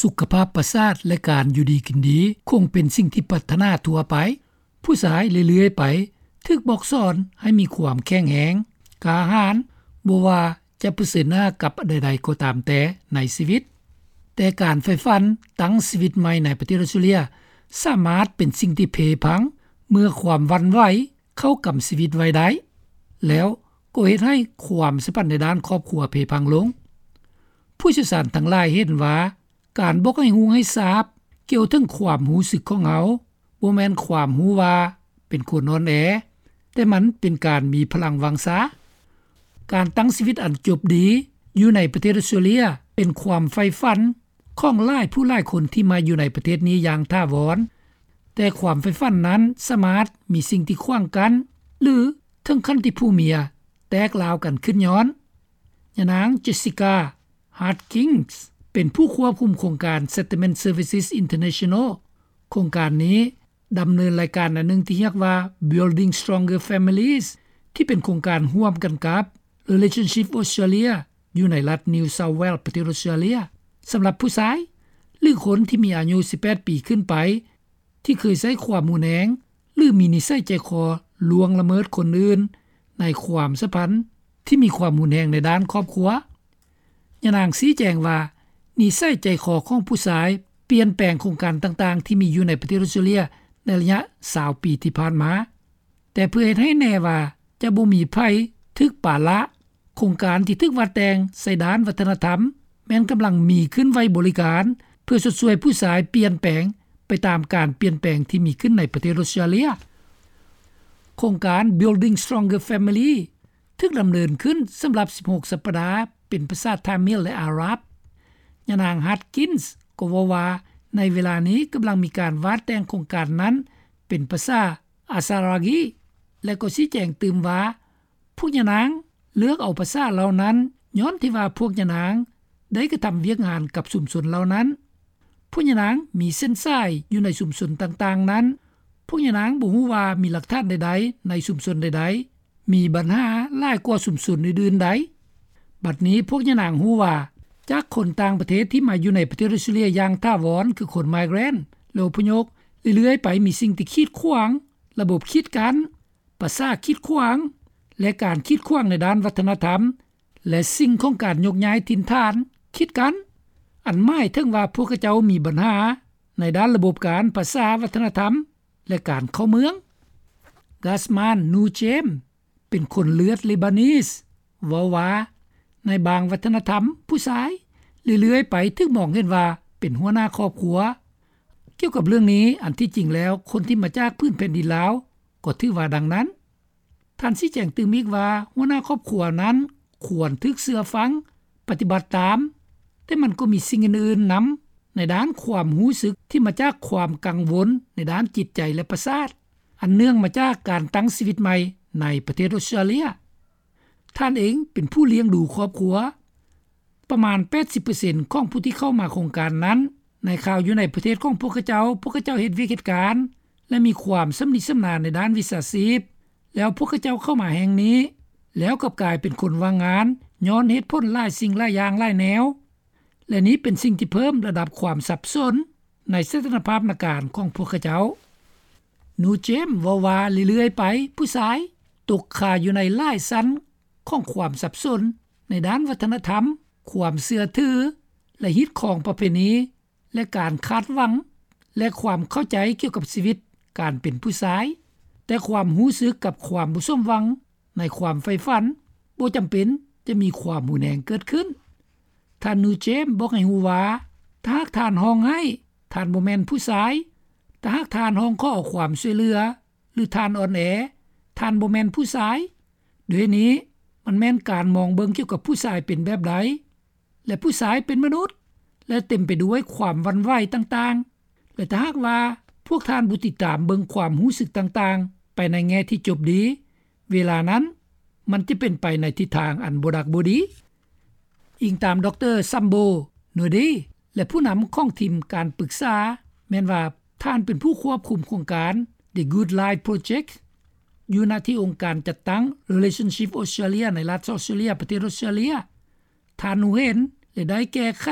ສຸຂະພາບປະສາດ ແລະ ການຢູ່ດີກິນດີ ຄົງເປັນສິ່ງທີ່ປາດຖະໜາທົ່ວໄປ. ຜູ້ຊາຍເລື້ອຍໆໄປຖືກບອກສອນໃຫ້ມີຄວາມແຂງແຮງ, ກ້າຫານ, ບໍ່ວ່າຈະປະເຊີນໜ້າກັບອັນໃດໆກໍຕາມແຕ່ໃນຊີວິດ. ແຕ່ການໃຝ່ຝັນຕັ້ງຊີວິດໃໝ່ໃນປະເທດອອສເຕຣເລຍ ສາມາດເປັນສິ່ງທີ່ເພພັງເມື່ອຄວາມຫວັ່ນໄຫວເຂົ້າກຳຊີວິດໄວ້ໄດ້, ແລ້ວກໍເຮັດໃຫ້ຄວາມສຳພັນໃນດ້ານຄອບຄົວເພພັງລົງ. ຜູ້ຊ່ຽວຊານທັງຫຼາຍເຫັນວ່າ ການບອກໃຫ້ຮູ້ໃຫ້ຊາບກ່ຽວເຖິງຄວາມຮູ້ສຶກຂອງເຮົາ ບໍ່ແມ່ນຄວາມຮູ້ວ່າເປັນຄົນອ່ອນແອ, ແຕ່ມັນເປັນການມີພະລັງວັງຊາ. ການຕັ້ງຊີວິດອັນຈົບດີຢູ່ໃນປະເທດອອສເຕຣເລຍ ເປັນຄວາມໃຝ່ຝັນຂອງຫຼາຍຜູ້ຫຼາຍຄົນທີ່ມາຢູ່ໃນປະເທດນີ້ຢ່າງຖາວອນ, ແຕ່ຄວາມໃຝ່ຝັນນັ້ນສາມາດມີສິ່ງທີ່ຂວາງກັ້ນ ຫຼື ເຖິງຂັ້ນທີ່ຜົວເມຍແຕກລາວກັນຂຶ້ນຍ້ອນ. ຍານາງ Jessica Harkins ເປັນຜູ້ຄວບຄຸມໂຄງການ Settlement Services International. ໂຄງການນີ້ດຳເນີນລາຍການອັນໜຶ່ງທີ່ຮຽກວ່າ Building Stronger Families ທີ່ເປັນໂຄງການຮ່ວມກັນກັບ Relationship Australia ຢູ່ໃນລັດ New South Wales ປະເທດອອສເຕຣເລຍ ສຳລັບຜູ້ຊາຍ ຫຼື ຄົນທີ່ມີອາຍຸສິບແປດປີຂຶ້ນໄປ ທີ່ເຄີຍໃຊ້ຄວາມຮຸນແຮງ ຫຼື ມີນິໄສໃຈຄໍລ່ວງລະເມີດຄົນອື່ນໃນຄວາມສຳພັນທີ່ມີຄວາມຮຸນແຮງໃນດ້ານຄອບຄົວ. ຍານາງຊີ້ແຈງວ່າ ນິໄສໃຈຄໍຂອງຜູ້ຊາຍປ່ຽນແປງໂຄງການຕ່າງໆທີ່ມີຢູ່ໃນປະເທດອອສເຕຣເລຍໃນໄລຍະຊາວປີທີ່ຜ່ານມາ. ແຕ່ເພື່ອເຮັດໃຫ້ແນ່ວ່າຈະບໍ່ມີໃຜຖືກປະລະ, ໂຄງການທີ່ຖືກວາດແຕ່ງໃສ່ດ້ານວັດທະນະທຳ ແມ່ນກຳລັງມີຂຶ້ນໄວ້ບໍລິການ ເພື່ອຊົດຊ່ວຍຜູ້ຊາຍປ່ຽນແປງໄປຕາມການປ່ຽນແປງທີ່ມີຂຶ້ນໃນປະເທດອອສເຕຣເລຍ. ໂຄງການ Building Stronger Family ຖືກດຳເນີນຂຶ້ນສຳລັບສິບຫົກສັບປະດາ ເປັນພາສາທາມິລ ແລະ ອາຣັບ. ຍານາງ Harkins ກໍເວົ້າວ່າ ໃນເວລານີ້ກຳລັງມີການວາດແຕ່ງໂຄງການນັ້ນເປັນພາສາ ອາຊາຣາກີ ແລະ ກໍຊີ້ແຈງຕື່ມວ່າ ພວກຍານາງເລືອກເອົາພາສາເຫຼົ່ານັ້ນ ຍ້ອນທີ່ວ່າພວກຍານາງໄດ້ກະທຳວຽກງານກັບຊຸມຊົນເຫຼົ່ານັ້ນ. ພວກຍານາງມີເສັ້ນສາຍຢູ່ໃນຊຸມຊົນຕ່າງໆນັ້ນ. ພວກຍານາງບໍ່ຮູ້ວ່າມີຫຼັກຖານໃດໆໃນຊຸມຊົນໃດໆ ມີບັນຫາຫຼາຍກວ່າຊຸມຊົນອື່ນໆໃດ. ບັດນີ້ພວກຍານາງຮູ້ວ່າ ຈາກຄົນຕ່າງປະເທດທີ່ມາຢູ່ໃນປະເທດອອສເຕຣເລຍຢ່າງຖາວອນ ຄືຄົນ migrant ແລະ ອົບພະຍົບ ເລື້ອຍໆໄປມີສິ່ງທີ່ຂີດຂວາງ, ລະບົບກີດກັ້ນ, ພາສາຂີດຂວາງ ແລະ ການຂີດຂວາງໃນດ້ານວັດທະນະທຳ ແລະ ສິ່ງຂອງການຍົກຍ້າຍຖິ່ນຖານຂີດກັ້ນ, ອັນໝາຍເຖິງວ່າພວກເຂົາເຈົ້າມີບັນຫາໃນດ້ານລະບົບການ, ພາສາ, ວັດທະນະທຳ ແລະ ການເຂົ້າເມືອງ. Gasman Nujem ເປັນຄົນເລືອດເລບານີສ ເວົ້າວ່າ ໃນບາງວັດທະນະທຳ ຜູ້ຊາຍເລື້ອຍໆໄປຖືກມອງເຫັນວ່າເປັນຫົວໜ້າຄອບຄົວ. ກ່ຽວກັບເລື່ອງນີ້, ອັນທີ່ຈິງແລ້ວຄົນທີ່ມາຈາກພື້ນແຜ່ນດິນລາວກໍຖືວ່າດັ່ງນັ້ນ. ທ່ານຊີ້ແຈງຕື່ມອີກວ່າ ຫົວໜ້າຄອບຄົວນັ້ນຄວນຖືກເຊື່ອຟັງ, ປະຕິບັດຕາມ, ແຕ່ມັນກໍມີສິ່ງອື່ນໆນຳ ໃນດ້ານຄວາມຮູ້ສຶກທີ່ມາຈາກຄວາມກັງວົນໃນດ້ານຈິດໃຈ ແລະ ປະສາດ ອັນເນື່ອງມາຈາກການຕັ້ງຊີວິດໃໝ່ໃນປະເທດອອສເຕຣເລຍ. ທ່ານເອງເປັນຜູ້ລ້ຽງດູຄອບຄົວ. ປະມານແປດສິບເປີເຊັນຂອງຜູ້ທີ່ເຂົ້າມາໂຄງການນັ້ນ ໃນຄາວຢູ່ໃນປະເທດຂອງພວກເຂົາເຈົ້າ, ພວກເຂົາເຈົ້າເຮັດວຽກເຮັດການ ແລະ ມີຄວາມຊຳນິຊຳນານໃນດ້ານວິຊາຊີບ, ແລ້ວພວກເຂົາເຈົ້າເຂົ້າມາແຫ່ງນີ້ ແລ້ວກັບກາຍເປັນຄົນວ່າງງານ ຍ້ອນເຫດຜົນຫຼາຍສິ່ງຫຼາຍຢ່າງຫຼາຍແນວ. ແລະ ນີ້ເປັນສິ່ງທີ່ເພີ່ມລະດັບຄວາມສັບສົນໃນສະຖານະພາບນະການຂອງພວກເຂົາເຈົ້າ. Nujem ເວົ້າວ່າ ເລື້ອຍໆໄປ ຜູ້ຊາຍຕົກຄາຢູ່ໃນຫຼາຍຊັ້ນຂອງຄວາມສັບສົນໃນດ້ານວັດທະນະທຳ, ຄວາມເຊື່ອຖື ແລະ ຮີດຄອງປະເພນີ ແລະ ການຄາດຫວັງ ແລະ ຄວາມເຂົ້າໃຈກ່ຽວກັບຊີວິດການເປັນຜູ້ຊາຍ, ແຕ່ຄວາມຮູ້ສຶກກັບຄວາມບໍ່ສົມຫວັງໃນຄວາມໃຝ່ຝັນບໍ່ຈຳເປັນຈະມີຄວາມຮຸນແຮງເກີດຂຶ້ນ. ທ່ານ Nujem ບອກໃຫ້ຮູ້ວ່າ ຖ້າຫາກທ່ານຮ້ອງໄຫ້, ທ່ານບໍ່ແມ່ນຜູ້ຊາຍ. ຖ້າຫາກທ່ານຮ້ອງຂໍຄວາມຊ່ວຍເຫຼືອ ຫຼື ທ່ານອ່ອນແອ, ທ່ານບໍ່ແມ່ນຜູ້ຊາຍ. ດ້ວຍເຫດນີ້, ມັນແມ່ນການມອງເບິ່ງກ່ຽວກັບຜູ້ຊາຍເປັນແບບໃດ ແລະ ຜູ້ຊາຍເປັນມະນຸດ ແລະ ເຕັມໄປດ້ວຍຄວາມຫວັ່ນໄຫວຕ່າງໆ ແລະ ຖ້າຫາກວ່າພວກທ່ານບໍ່ຕິດຕາມເບິ່ງຄວາມຮູ້ສຶກຕ່າງໆໄປໃນແງ່ທີ່ຈົບດີ, ເວລານັ້ນມັນຈະເປັນໄປໃນທິດທາງອັນບໍ່ດັກບໍ່ດີ. ອີງຕາມ ດຣ. Sambo Node ແລະ ຜູ້ນຳຂອງທີມການປຶກສາ ແມ່ນວ່າທ່ານເປັນຜູ້ຄວບຄຸມໂຄງການ The Good Life Project ຢູ່ນະທີ່ອົງການຈັດຕັ້ງ Relationship Australia ໃນລັດ South Australia ປະເທດ Australia. ທ່ານຮູ້ເຫັນ ແລະ ໄດ້ແກ້ໄຂ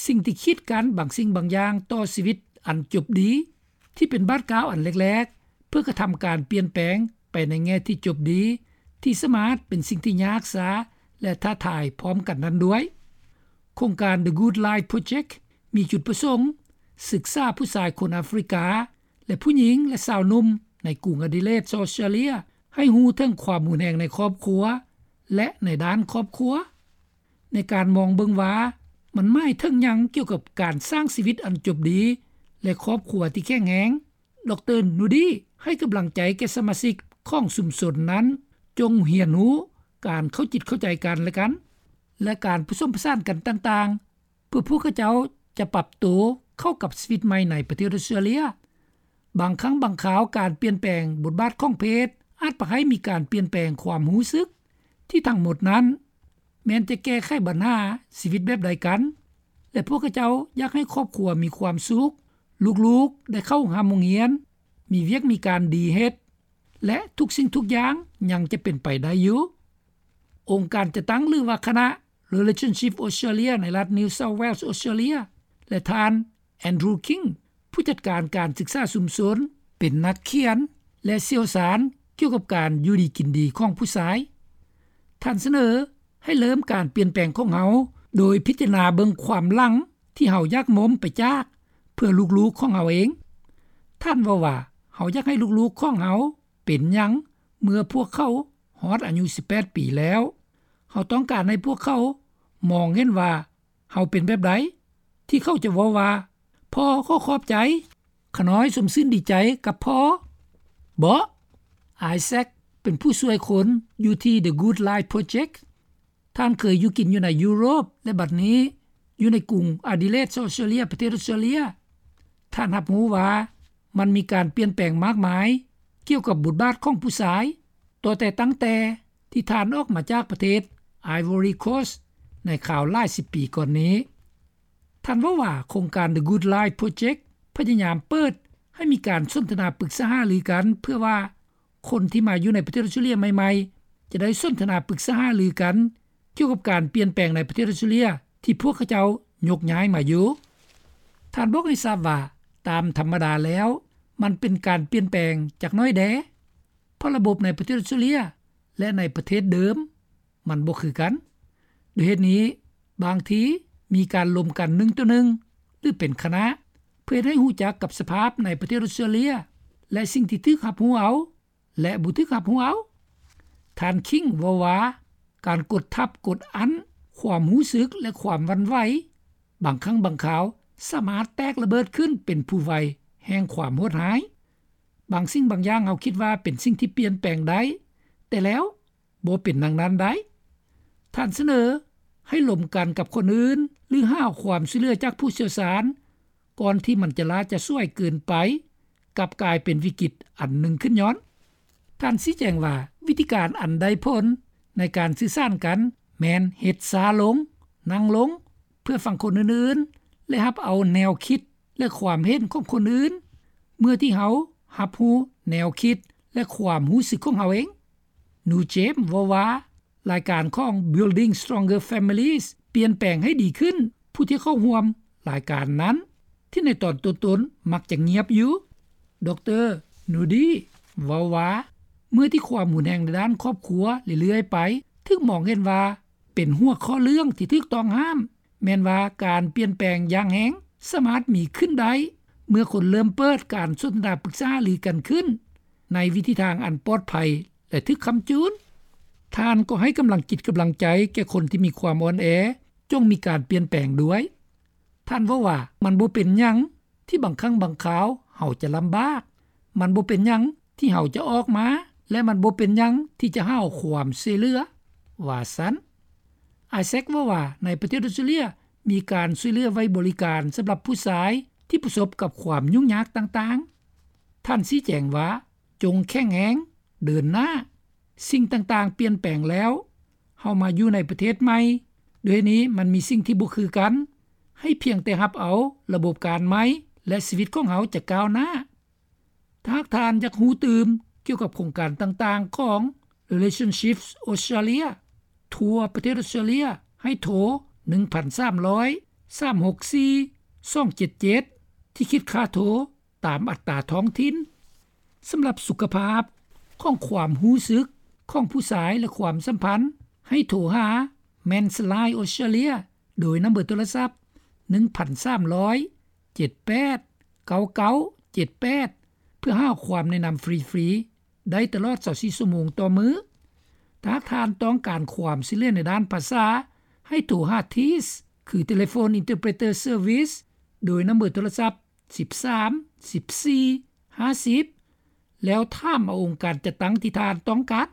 ສິ່ງທີ່ກີດກັ້ນບາງສິ່ງບາງຢ່າງຕໍ່ຊີວິດອັນຈົບດີ ທີ່ເປັນບາດກ້າວອັນແລກໆ ເພື່ອກະທຳການປ່ຽນແປງໄປໃນແງ່ທີ່ຈົບດີ ທີ່ສາມາດເປັນສິ່ງທີ່ຍາກຊາ ແລະ ທ້າທາຍພ້ອມກັນນັ້ນດ້ວຍ. ໂຄງການ The Good Life Project ມີຈຸດປະສົງສຶກສາຜູ້ຊາຍຄົນອາຟຣິກາ ແລະ ຜູ້ຍິງ ແລະ ຊາວໜຸ່ມໃນກຸງອະດີເລດ ອອສເຕຣເລັຍ ໃຫ້ຮູ້ເຖິງຄວາມຮຸນແຮງໃນຄອບຄົວ ແລະ ໃນດ້ານຄອບຄົວ ໃນການມອງເບິ່ງວ່າມັນໝາຍເຖິງຫຍັງກ່ຽວກັບການສ້າງຊີວິດອັນຈົບດີ ແລະ ຄອບຄົວທີ່ແຂງແຮງ, ດຣ. ນູດີ ໃຫ້ກຳລັງໃຈແກ່ສະມາຊິກຂອງຊຸມຊົນນັ້ນ ຈົ່ງຮຽນຮູ້ການເຂົ້າຈິດເຂົ້າໃຈກັນແລະກັນ ແລະ ການປະສົມປະສານກັນຕ່າງໆ ເພື່ອພວກເຂົາເຈົ້າຈະປັບໂຕເຂົ້າກັບຊີວິດໃໝ່ໃນປະເທດອອສເຕຣເລັຍ. ບາງຄັ້ງບາງຄາວການປ່ຽນແປງບົດບາດຂອງເພດ ອາດພາໃຫ້ມີການປ່ຽນແປງຄວາມຮູ້ສຶກ ທີ່ທັງໝົດນັ້ນ ແມ່ນຈະແກ້ໄຂບັນຫາຊີວິດແບບໃດກັນ ແລະ ພວກເຂົາເຈົ້າຢາກໃຫ້ຄອບຄົວມີຄວາມສຸກ, ລູກໆໄດ້ເຂົ້າຮ່ຳໂຮງຮຽນ, ມີວຽກມີການດີເຮັດ ແລະ ທຸກສິ່ງທຸກຢ່າງຍັງຈະເປັນໄປໄດ້ຢູ່. ອົງການຈັດຕັ້ງ ຫຼືວ່າຄະນະ Relationship Australia ໃນລັດ New South Wales ອອສເຕຣເລັຍ ແລະ ທ່ານ Andrew King ຜູ້ຈັດການການສຶກສາຊຸມຊົນ ເປັນນັກຂຽນ ແລະ ຊ່ຽວຊານກ່ຽວກັບການຢູ່ດີກິນດີຂອງຜູ້ຊາຍ. ທ່ານສະເໜີໃຫ້ເລີ່ມການປ່ຽນແປງຂອງເຮົາ ໂດຍພິຈາລະນາເບິ່ງຄວາມຫຼັງທີ່ເຮົາຢາກໝົມໄປຈາກ ເພື່ອລູກໆຂອງເຮົາເອງ. ທ່ານເວົ້າວ່າ, ເຮົາຢາກໃຫ້ລູກໆຂອງເຮົາເປັນຫຍັງເມື່ອພວກເຂົາຮອດອາຍຸສິບແປດປີແລ້ວ. ເຮົາຕ້ອງການໃຫ້ພວກເຂົາມອງເຫັນວ່າເຮົາເປັນແບບໃດ ທີ່ເຂົາຈະເວົ້າວ່າ, ພໍ່ຂໍຂອບໃຈ, ຂ້ານ້ອຍຊົມຊື່ນດີໃຈກັບພໍ່. ເບາະ Isaac ເປັນຜູ້ຊ່ວຍຄົນຢູ່ທີ່ The Good Life Project. ທ່ານເຄີຍຢູ່ກິນຢູ່ໃນຢູໂຣບ ແລະ ບັດນີ້ຢູ່ໃນກຸງອາດີເລດ ອອສເຕຣເລັຍ ປະເທດອອສເຕຣເລັຍ. ທ່ານຮັບຮູ້ວ່າມັນມີການປ່ຽນແປງມາກມາຍກ່ຽວກັບບົດບາດຂອງຜູ້ຊາຍ ຕໍ່ແຕ່ຕັ້ງແຕ່ທີ່ທ່ານອອກມາຈາກປະເທດ Ivory Coast ໃນຄາວຫຼາຍສິບປີກ່ອນນີ້. ທ່ານເວົ້າວ່າ ໂຄງການ The Good Life Project ພະຍາຍາມເປີດໃຫ້ມີການສົນທະນາປຶກສາຫາລືກັນ ເພື່ອວ່າຄົນທີ່ມາຢູ່ໃນປະເທດອອສເຕຣເລັຍໃໝ່ໆ ຈະໄດ້ສົນທະນາປຶກສາຫາລືກັນ ກ່ຽວກັບການປ່ຽນແປງໃນປະເທດອອສເຕຣເລັຍ ທີ່ພວກເຂົາເຈົ້າຍົກຍ້າຍມາຢູ່. ທ່ານບອກໃຫ້ຊາບວ່າ ຕາມທຳມະດາແລ້ວ ມັນເປັນການປ່ຽນແປງຈັກໜ້ອຍແດ່ ເພາະລະບົບໃນປະເທດອອສເຕຣເລັຍ ແລະ ໃນປະເທດເດີມ ມັນບໍ່ຄືກັນ. ດ້ວຍເຫດນີ້, ບາງທີມີການລົມກັນໜຶ່ງຕໍ່ໜຶ່ງ ຫຼື ເປັນຄະນະ ເພື່ອເຮັດໃຫ້ຮູ້ຈັກກັບສະພາບໃນປະເທດອອສເຕຣເລັຍ ແລະ ສິ່ງທີ່ຖືກຮັບຮູ້ເອົາ ແລະ ບໍ່ຖືກຮັບຮູ້ເອົາ. ທ່ານ King ເວົ້າວ່າ ການກົດທັບກົດອັ້ນຄວາມຮູ້ສຶກ ແລະ ຄວາມຫວັ່ນໄຫວ ບາງຄັ້ງບາງຄາວສາມາດແຕກລະເບີດຂຶ້ນເປັນພູໄຟແຫ່ງຄວາມໂຫດຮ້າຍ. ບາງສິ່ງບາງຢ່າງເຮົາຄິດວ່າເປັນສິ່ງທີ່ປ່ຽນແປງໄດ້, ແຕ່ແລ້ວບໍ່ເປັນດັ່ງນັ້ນໄດ້. ທ່ານສະເໜີໃຫ້ລົມກັນກັບຄົນອື່ນ ຫຼື ຫາຄວາມຊ່ວຍເຫຼືອຈາກຜູ້ຊ່ຽວຊານ ກ່ອນທີ່ມັນຈະລ້າຈະສວຍເກີນໄປ, ກັບກາຍເປັນວິກິດອັນໜຶ່ງຂຶ້ນຍ້ອນ. ທ່ານຊີ້ແຈງວ່າ ວິທີການອັນໄດ້ຜົນໃນການສື່ສານກັນ ແມ່ນເຮັດຊ້າລົງ, ນັ່ງລົງ ເພື່ອຟັງຄົນອື່ນໆ ແລະ ຮັບເອົາແນວຄິດ ແລະ ຄວາມເຫັນຂອງຄົນອື່ນ ເມື່ອທີ່ເຮົາຮັບຮູ້ແນວຄິດ ແລະ ຄວາມຮູ້ສຶກຂອງເຮົາເອງ. ນູເຈມ ເວົ້າວ່າ ລາຍການຂອງ Building Stronger Families ປ່ຽນແປງໃຫ້ດີຂຶ້ນ ຜູ້ທີ່ເຂົ້າຮ່ວມລາຍການນັ້ນ ທີ່ໃນຕອນຕົ້ນໆມັກຈະງຽບຢູ່. ດຣ. ນູດີ ເວົ້າວ່າ ເມື່ອທີ່ຄວາມຮຸນແຮງໃນດ້ານຄອບຄົວເລື້ອຍໆໄປ ຖືກມອງເຫັນວ່າເປັນຫົວຂໍ້ເລື່ອງທີ່ຖືກຕ້ອງຫ້າມ, ແມ່ນວ່າການປ່ຽນແປງຢ່າງແຮງສາມາດມີຂຶ້ນໄດ້ ເມື່ອຄົນເລີ່ມເປີດການສົນທະນາປຶກສາຫາລືກັນຂຶ້ນ ໃນວິທີທາງອັນປອດໄພ ແລະ ຖືກຄ້ຳຈູນ. ທ່ານກໍໃຫ້ກຳລັງຈິດກຳລັງໃຈແກ່ຄົນທີ່ມີຄວາມອ່ອນແອ ຈົ່ງມີການປ່ຽນແປງດ້ວຍ. ທ່ານເວົ້າວ່າ ມັນບໍ່ເປັນຫຍັງທີ່ບາງຄັ້ງບາງຄາວເຮົາຈະລຳບາກ, ມັນບໍ່ເປັນຫຍັງທີ່ເຮົາຈະອອກມາ ແລະ ມັນບໍ່ເປັນຫຍັງທີ່ຈະຫາຄວາມຊ່ວຍເຫຼືອ, ວ່າຊັ້ນ. ອາແຊັກເວົ້າວ່າ ໃນປະເທດອອສເຕຣເລັຍມີການຊ່ວຍເຫຼືອໄວ້ບໍລິການສຳລັບຜູ້ຊາຍທີ່ປະສົບກັບຄວາມຫຍຸ້ງຍາກຕ່າງໆ. ທ່ານຊີ້ແຈງວ່າ ຈົ່ງແຂງແຮງ, ເດີນໜ້າ, ສິ່ງຕ່າງໆປ່ຽນແປງແລ້ວ, ເຮົາມາຢູ່ໃນປະເທດໃໝ່, ດ້ວຍນີ້ມັນມີສິ່ງທີ່ບໍ່ຄືກັນ, ໃຫ້ພຽງແຕ່ຮັບເອົາລະບົບການໃໝ່ ແລະ ຊີວິດຂອງເຮົາຈະກ້າວໜ້າ. ຖ້າຫາກທ່ານຢາກຮູ້ຕື່ມກ່ຽວກັບໂຄງການຕ່າງໆຂອງ Relationships Australia ທົ່ວປະເທດອອສເຕຣເລັຍ ໃຫ້ໂທ ໜຶ່ງພັນສາມຮ້ອຍ ສາມຫົກສີ່ສອງເຈັດເຈັດ ທີ່ຄິດຄ່າໂທຕາມອັດຕາທ້ອງຖິ່ນ. ສຳລັບສຸຂະພາບຂອງຄວາມຮູ້ສຶກຂອງຜູ້ຊາຍ ແລະ ຄວາມສຳພັນ ໃຫ້ໂທຫາ Men's Line Australia ໂດຍນຳເບີໂທລະສັບ ໜຶ່ງພັນສາມຮ້ອຍ ເຈັດແປດ ເກົ້າເກົ້າເຈັດແປດ ເພື່ອຫາຄວາມແນະນຳຟຣີໆ ໄດ້ຕະຫຼອດຊາວສີ່ຊົ່ວໂມງຕໍ່ມື້. ຖ້າຫາກທ່ານຕ້ອງການຄວາມຊ່ວຍເຫຼືອໃນດ້ານພາສາ ໃຫ້ໂທຫາ TIS ຄື Telephone Interpreter Service ໂດຍນຳເບີໂທລະສັບ ສິບສາມ ສິບສີ່ ຫ້າສິບ ແລ້ວຖາມເອົາອົງການຈັດຕັ້ງທີ່ທ່ານຕ້ອງການ.